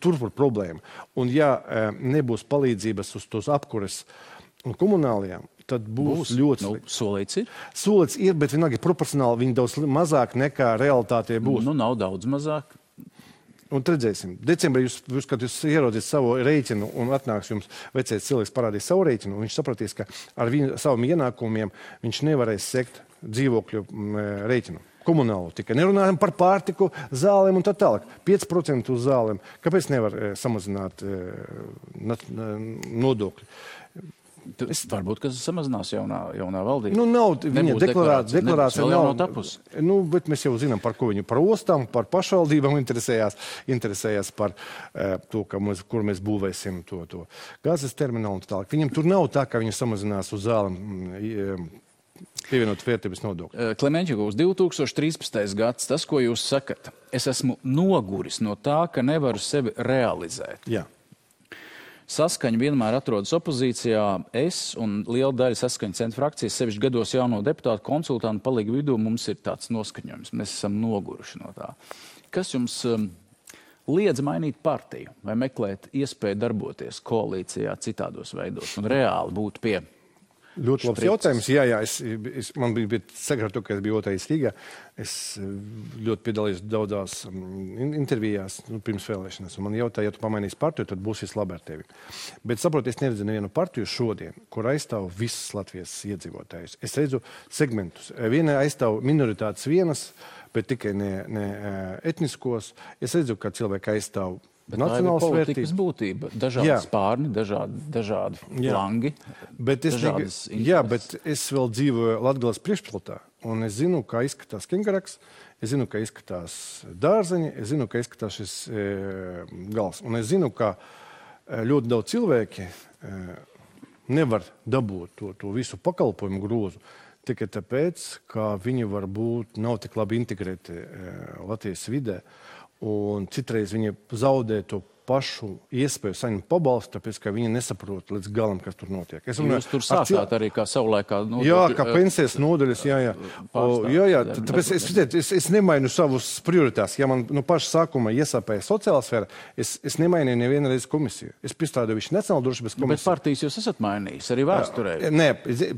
Tur ir problēma. Un ja nebūs palīdzības uz tos apkures un komunālajām, tad būs ļoti slikti. Solīts ir? Solīts ir, bet vienalga proporcionāli viņi daudz mazāk nekā realitātē būs. Nav daudz mazāk. Un redzēsim. Decembrī kad jūs ieraudzīt savu rēķinu un atnāks jums vecais cilvēks parādīs savu rēķinu, un viņš sapratīs, ka ar saviem ienākumiem viņš nevarēs sekt dzīvokļu rēķinu. Komunālu tikai. Nerunājam par pārtiku, zālēm un tā tālāk. 5% uz zālēm. Kāpēc nevar samazināt nodokļi? Varbūt, ka samazinās jaunā valdība. Nav viņa deklarācija nav tapusi. Bet mēs jau zinām, par ko viņi par ostām, par pašvaldībām interesējās par to, kur mēs būvēsim to gāzes terminālu un tā tālāk. Viņam tur nav tā, ka viņi samazinās uz zālēm pievienot vērtības nodokļu. Klemenķikungs, 2013. gads, tas, ko jūs sakat, es esmu noguris no tā, ka nevaru sevi realizēt. Jā. Saskaņa vienmēr atrodas opozīcijā. Es un liela daļa Saskaņa centra frakcijas 7 gados jauno deputātu konsultantu palīgu vidū mums ir tāds noskaņojums. Mēs esam noguruši no tā. Kas jums liedz mainīt partiju vai meklēt iespēju darboties koalīcijā citādos veidos un reāli būt pie? Ļoti labs jautājums. Jā, man bija sagratu, ka es biju 2. Rīgā. Es ļoti piedalījos daudzās intervijās pirms vēlēšanas. Man jautāja, ja tu pamainīsi partiju, tad būs viss labi ar tevi. Bet saprot, es neredzu nevienu partiju šodien, kur aizstāv visas Latvijas iedzīvotājus. Es redzu segmentus. Viena aizstāv minoritātes vienas, bet tikai ne etniskos. Es redzu, ka cilvēki aizstāv nacionālas vērtības būtība, dažādi spārni, dažādi flangi, dažādas intereses. Jā, bet es vēl dzīvoju Latgales priekšpilsētā, un es zinu, kā izskatās Kingaraks, es zinu, kā izskatās dārzeņi, es zinu, kā izskatās šis gals. Un es zinu, ka ļoti daudz cilvēki nevar dabūt to visu pakalpojumu grozu, tikai tāpēc, ka viņi varbūt nav tik labi integrēti Latvijas vidē. Un citreiz viņi zaudē to pašu iespēju saņemt pabalstu, tāpēc, ka viņi nesaprot līdz galam, kas tur notiek. Jūs tur sākāt arī kā savulaikā nodokļu. Jā, kā pensijas nodaļas, jā. Tāpēc es nemainu savus prioritātus. Ja man no paša sākuma iesāpēja sociālā sfēra, es nemainīju nevienu reizi komisiju. Es piestrādāju visu Nacionālo drošības komisiju. Bet partijas jūs esat mainījis, arī vēsturē. Nē,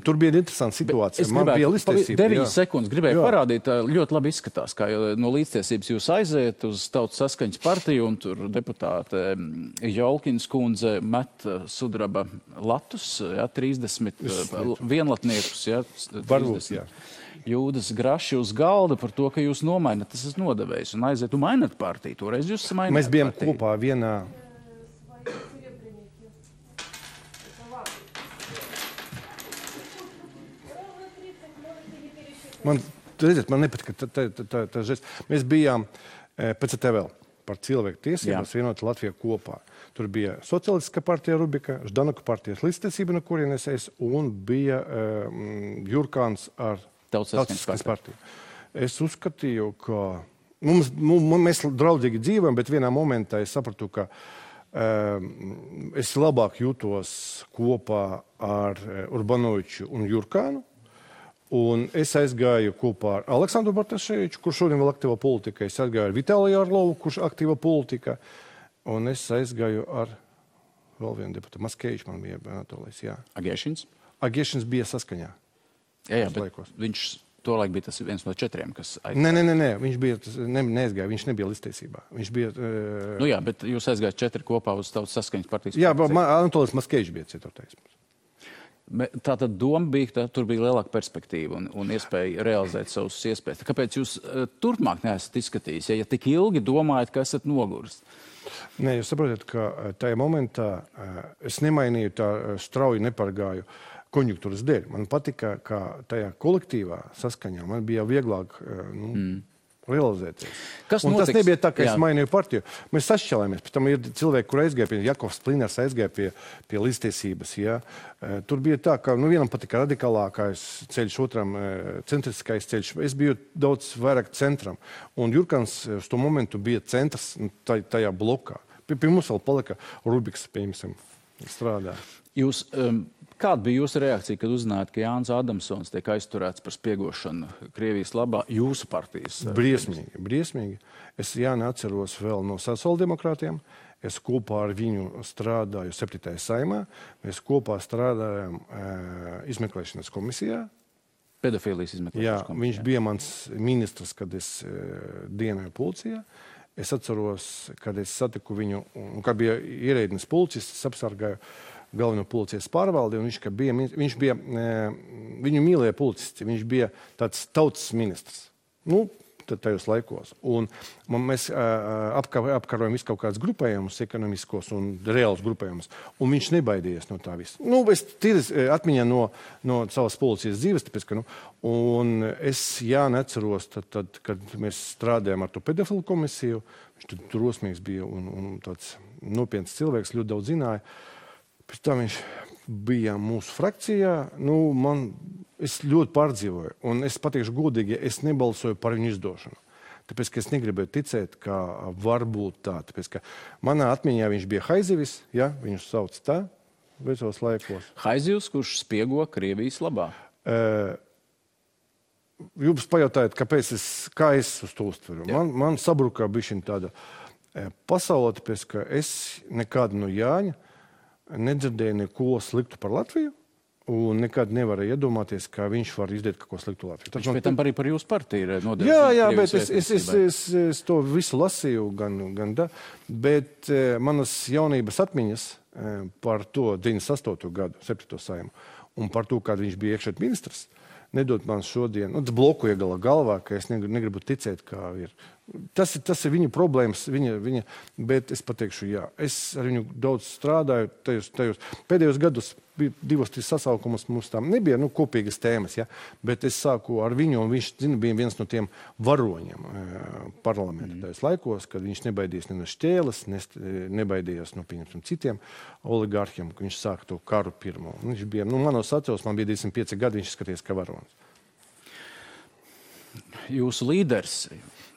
tur bija interesanta situācija. Man bija līdztiesība. 9 sekundes gribēju parādīt, ļoti labi izskatās, kā no līdztiesības jūs aiziet uz Tautas Saskaņas partiju un tur deputāte Jolkins kundze met sudraba latus, 30 vienlatniekus, 30 jūdas graši uz galda par to, ka jūs nomainat, tas esat nodevējis un aiziet un mainat partiju. Toreiz jūs mainat Mēs bijām partiju. Kopā vienā. redziet, man nepatika tā žest. Mēs bijām PCTVL par cilvēku tiesības vienot Latviju kopā. Tur bija Socialistiskā partija Rubika, Ždanoka partijas līdztiesība, no kurienes es, un bija Jurkāns ar Tautas partiju. Es uzskatīju, ka mēs draudzīgi dzīvojam, bet vienā momentā es sapratu, ka es labāk jūtos kopā ar Urbanoviču un Jurkānu. Un es aizgāju kopā ar Aleksandru Bartaševiču, kurš šodien vēl aktīva politika. Es aizgāju ar Vitāliju Arlovu, kurš aktīva politika. Un es aizgāju ar vēl vienu deputātu. Maskēvičs man bija Anatolijas, jā. Agiešins? Agiešins bija Saskaņā. Jā, bet viņš tolaik bija tas viens no 4, kas aizgāja. Nē, viņš bija, neaizgāja, viņš nebija līdztiesībā. Viņš bija... Nu jā, bet jūs aizgājat 4 kopā uz Tautas Saskaņas partijas. Jā, Anatolijas Maskēvičs bija 4. Tātad doma bija, ka tur bija lielāka perspektīva un iespēja realizēt savus iespējas. Kāpēc jūs turpmāk neesat izskatījis, ja tik ilgi domājat, ka esat noguris? Nē, jūs saprotat, ka tajā momentā es nemainīju tā strauji nepargāju konjunktūras dēļ. Man patika, ka tajā kolektīvā Saskaņā man bija vieglāk realizēties. Tas nebija tā, ka es mainīju partiju. Mēs sašķelāmies. Pēc tam ir cilvēki, kur aizgāja pie Jakovs Pliners, aizgāja pie līdztiesības. Ja. Tur bija tā, ka vienam patika radikālākais ceļš, otram centriskais ceļš. Es biju daudz vairāk centram. Un Jurkans uz to momentu bija centrs tajā blokā. Pie mums vēl palika Rubiks, piemēram, strādā. Kāda bija jūsu reakcija, kad uzzinājāt, ka Jānis Adamsons tiek aizturēts par spiegošanu Krievijas labā jūsu partijas? Briesmīgi. Es Jāni atceros vēl no sociāldemokrātiem. Es kopā ar viņu strādāju 7. saimā. Mēs kopā strādājām izmeklēšanas komisijā. Pedofīlijas izmeklēšanas komisijā. Viņš bija mans ministrs, kad es dienoju policijā. Es atceros, kad es satiku viņu, un kad bija ierēdnis policists, es apsargāju galveno policijas pārvaldi, un viņš bija viņu mīlēja policisti, viņš bija tāds tautas ministrs. Nu, tajos laikos. Un mēs apkarojam visu kaut kādus grupējumus, ekonomiskos un reālus grupējumus, un viņš nebaidījās no tā visa. Nu, es atmiņā no savas policijas dzīves, tāpēc, ka, un es neceros, tad, kad mēs strādājam ar to pedofilu komisiju, viņš tur drosmīgs bija un tāds nopietns cilvēks, ļoti daudz zināja. Pēc tam viņš bija mūsu frakcijā. Es ļoti pārdzīvoju. Un es pateikšu godīgi, es nebalsoju par viņu izdošanu. Tāpēc, ka es negribēju ticēt, ka var būt tā. Tāpēc, ka manā atmiņā viņš bija Haizivis, ja, viņu sauc tā, vecos laikos. Haizivs, kurš spiego Krievijas labā? Jūs pajautājat, kā es uz to uztveru. Man sabrukā bišķiņ tāda pasaule, tāpēc, ka es nekādu no Jāņa nedzirdēju neko sliktu par Latviju, un nekad nevarēju iedomāties, ka viņš var izdarīt kaut ko sliktu Latviju. Viņš pēc tam arī par jūsu partiju ir nodevis. Jā, bet es to visu lasīju, gan da, bet manas jaunības atmiņas par to 98. gadu, 7. saimu, un par to, kad viņš bija iekšēt ministrs, nedod man šodien, tas bloku iegala galvā, ka es negribu ticēt, kā ir. Tas ir viņa problēmas, bet es pateikšu, jā, es ar viņu daudz strādāju, tajos pēdējos gados bija 2-3 sasaukumus, mums tam nebija kopīgas tēmas, ja? Bet es sāku ar viņu, un viņš bija viens no tiem varoņiem parlamenta tajos laikos, kad viņš nebaidījās ne no šķēles, nebaidījās no citiem oligārhiem, ka viņš sāka to karu pirmo. Viņš bija, manos atceros, man bija 25 gadi, viņš skaties kā varonis. Jūsu līderis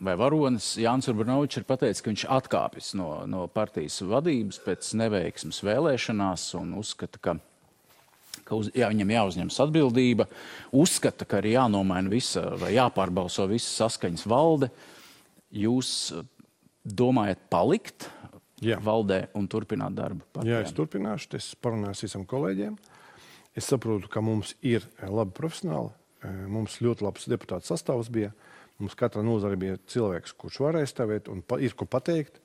vai varonis Jānis Urbanovičs ir pateicis, ka viņš atkāpjas no partijas vadības pēc neveiksmes vēlēšanās un uzskata, ka viņam jāuzņemas atbildība, uzskata, ka ir jānomaina visa vai jāpārbalso visa Saskaņas valde. Jūs domājat palikt valdē un turpināt darbu partijām? Jā, es turpināšu, es parunāšu visam kolēģiem. Es saprotu, ka mums ir labi profesionāli. Mums ļoti labs deputāts sastāvs bija. Mums katra nozare bija cilvēks, kurš varēja stāvēt un ir ko pateikt.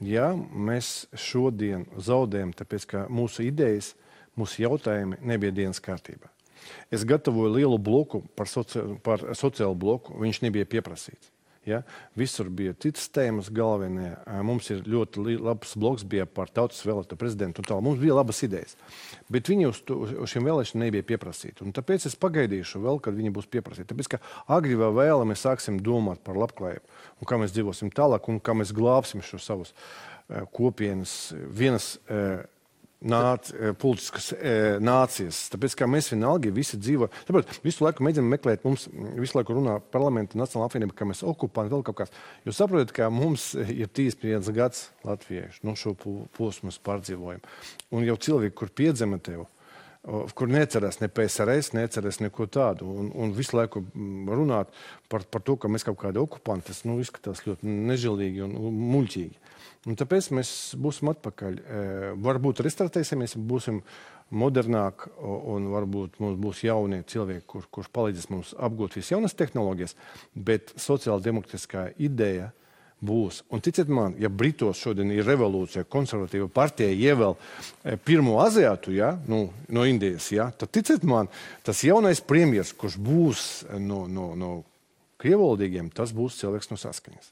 Jā, mēs šodien zaudējam, tāpēc, ka mūsu idejas, mūsu jautājumi nebija dienas kārtībā. Es gatavoju lielu bloku par sociālu bloku, viņš nebija pieprasīts. Ja? Visur bija citas tēmas galvenie. Mums ir ļoti labs bloks bija par tautas vēlēto prezidentu un tā. Mums bija labas idejas. Bet viņi uz šiem vēlēšanām nebija pieprasīti. Un tāpēc es pagaidīšu vēl, kad viņi būs pieprasīti. Tāpēc, ka agri vai vēla mēs sāksim domāt par labklājību un kā mēs dzīvosim tālāk un kā mēs glābsim šo savus kopienas, vienas politiskas nācijas. Tāpēc, kā mēs vienalgi visi dzīvo. Tāpēc visu laiku mēģinām meklēt, mums visu laiku runā parlamenta Nacionāla apvienība, ka mēs okupanti vēl kaut kāds. Jūs saprotat, ka mums ir 31 gads latviešu, šo posmu mēs pārdzīvojam. Un jau cilvēki, kur piedzima tev, kur necerēs ne PSRS, necerēs neko tādu. Un visu laiku runāt par to, ka mēs kaut kādi okupanti, tas izskatās ļoti nežēlīgi un muļķīgi. Un tāpēc mēs būsim atpakaļ. Varbūt restartēsimies, būsim modernāk un varbūt mums būs jaunie cilvēki, kurš palīdzēs mums apgūt visas jaunas tehnoloģijas, bet sociāldemokrātiskā ideja būs. Un ticiet man, ja Britos šodien ir revolūcija, konservatīva partija ievēl pirmo aziātu, ja, no Indijas, ja, tad ticiet man, tas jaunais premjers, kurš būs no krievvalodīgiem, tas būs cilvēks no Saskaņas.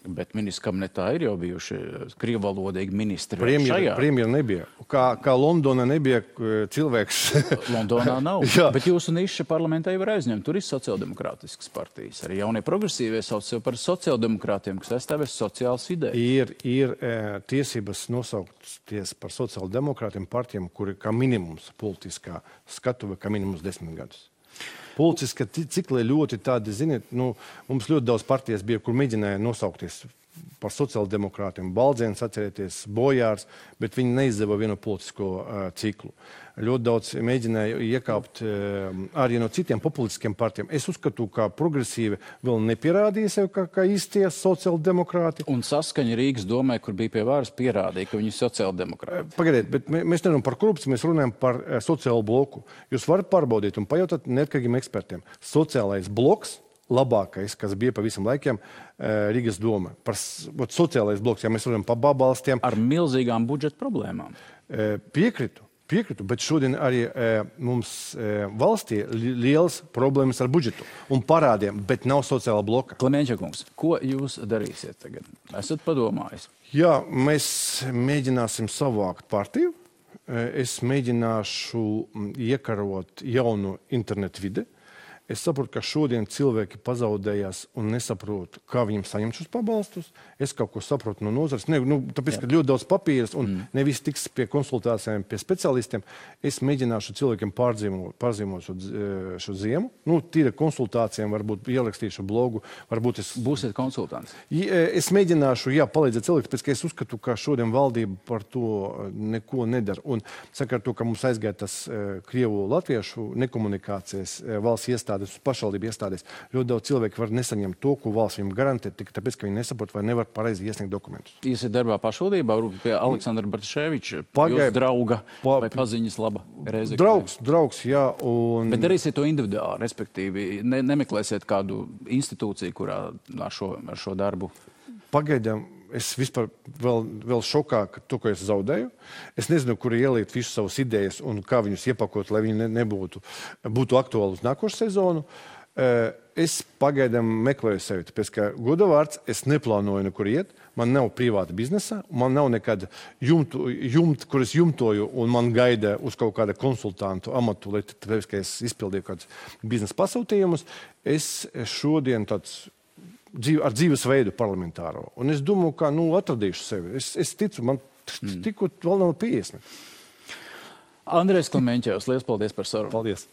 Bet ministrs kabinetā ir jau bijuši krievvalodīgi ministri. Premjera nebija. Kā Londona nebija cilvēks. Londonā nav. Bet jūsu niša parlamentā jau ir aizņemta. Tur ir sociāldemokrātiskas partijas. Arī jaunie progresīvie sauc sev par sociāldemokrātiem, kas aizstāvēs sociālas idejas. Ir tiesības nosaukties par sociāldemokrātiem partijām, kuri kā minimums politiskā skatuve, kā minimums 10 gadus. Politiski cikli ļoti tādi, ziniet, mums ļoti daudz partijas bija, kur mēģināja nosaukties par sociāldemokrātiem. Baldzēns, atcerieties, Bojārs, bet viņi neizdeva vienu politisko ciklu. Ļoti daudz mēģināja iekāpt arī no citiem populistiskiem partijiem. Es uzskatu, ka progresīvi vēl nepierādīja sev kā īstie sociāldemokrāti. Un Saskaņa Rīgas domē, kur bija pie varas, pierādīja, ka viņi ir sociāldemokrāti. Pagaidiet, bet mēs nerunājam par korupciju, mēs runājam par sociālo bloku. Jūs varat pārbaudīt un pajautāt neatkarīgiem ekspertiem. Sociālais bloks, labākais, kas bija pa visam laikiem Rīgas doma. Par sociālais bloks, ja mēs runājam par pabalstiem. Ar milzīgām budžeta problēmām. Piekrītu, bet šodien arī mums valstī liels problēmas ar budžetu un parādiem, bet nav sociāla bloka. Klemēņķa kungs, ko jūs darīsiet tagad? Esat padomājis? Jā, mēs mēģināsim savākt partiju. Es mēģināšu iekarot jaunu internetu vidi. Es saprotu, ka šodien cilvēki pazaudējās un nesaprot, kā viņiem saņemt šos pabalstus. Es kaut ko saprotu no nozares. Tāpēc, ka ļoti daudz papīras un nevis tiks pie konsultācijām, pie speciālistiem. Es mēģināšu cilvēkiem pārzīmot šo ziemu. Tīra konsultācijām, varbūt ierakstīšu blogu. Varbūt es... Būsiet konsultants? Es mēģināšu, palīdzēt cilvēkiem, tāpēc, ka es uzskatu, ka šodien valdība par to neko nedara. Un saka ar to, ka mums aizgāja tas krievu-latviešu nekomunikācijas valsts iestādes, pašvaldību iestādēs. Ļoti daudz cilvēku var nesaņemt to, ko valsts viņam garantē, tikai tāpēc, ka viņi nesaprot vai nevar pareizi iesniegt dokumentus. Iesiet darbā pašvaldībā, pie Aleksandra Bartaševiča, jūsu drauga vai paziņas laba Rēzeknē? Draugs, jā. Bet darīsiet to individuāli, respektīvi, nemeklēsiet kādu institūciju, kurā ar šo darbu? Pagaidām. Es vispār vēl šokā, to, ko es zaudēju. Es nezinu, kur ielikt visu savas idejas un kā viņus iepakot, lai viņi būtu aktuāli uz nākošu sezonu. Es pagaidām meklēju sevi, tāpēc, ka godavārds es neplānoju nekur iet. Man nav privāta biznesa, man nav nekāda kur es jumtoju un man gaida uz kaut kāda konsultantu amatu, lai tāpēc, ka es izpildīju kādus biznesa pasūtījumus. Es šodien ar dzīvesveidu parlamentāro. Un es domāju, ka atradīšu sevi. Es ticu, man tikko vēl nav 50. Andrejs Klemēņķevs, liels paldies par sarunu. Paldies.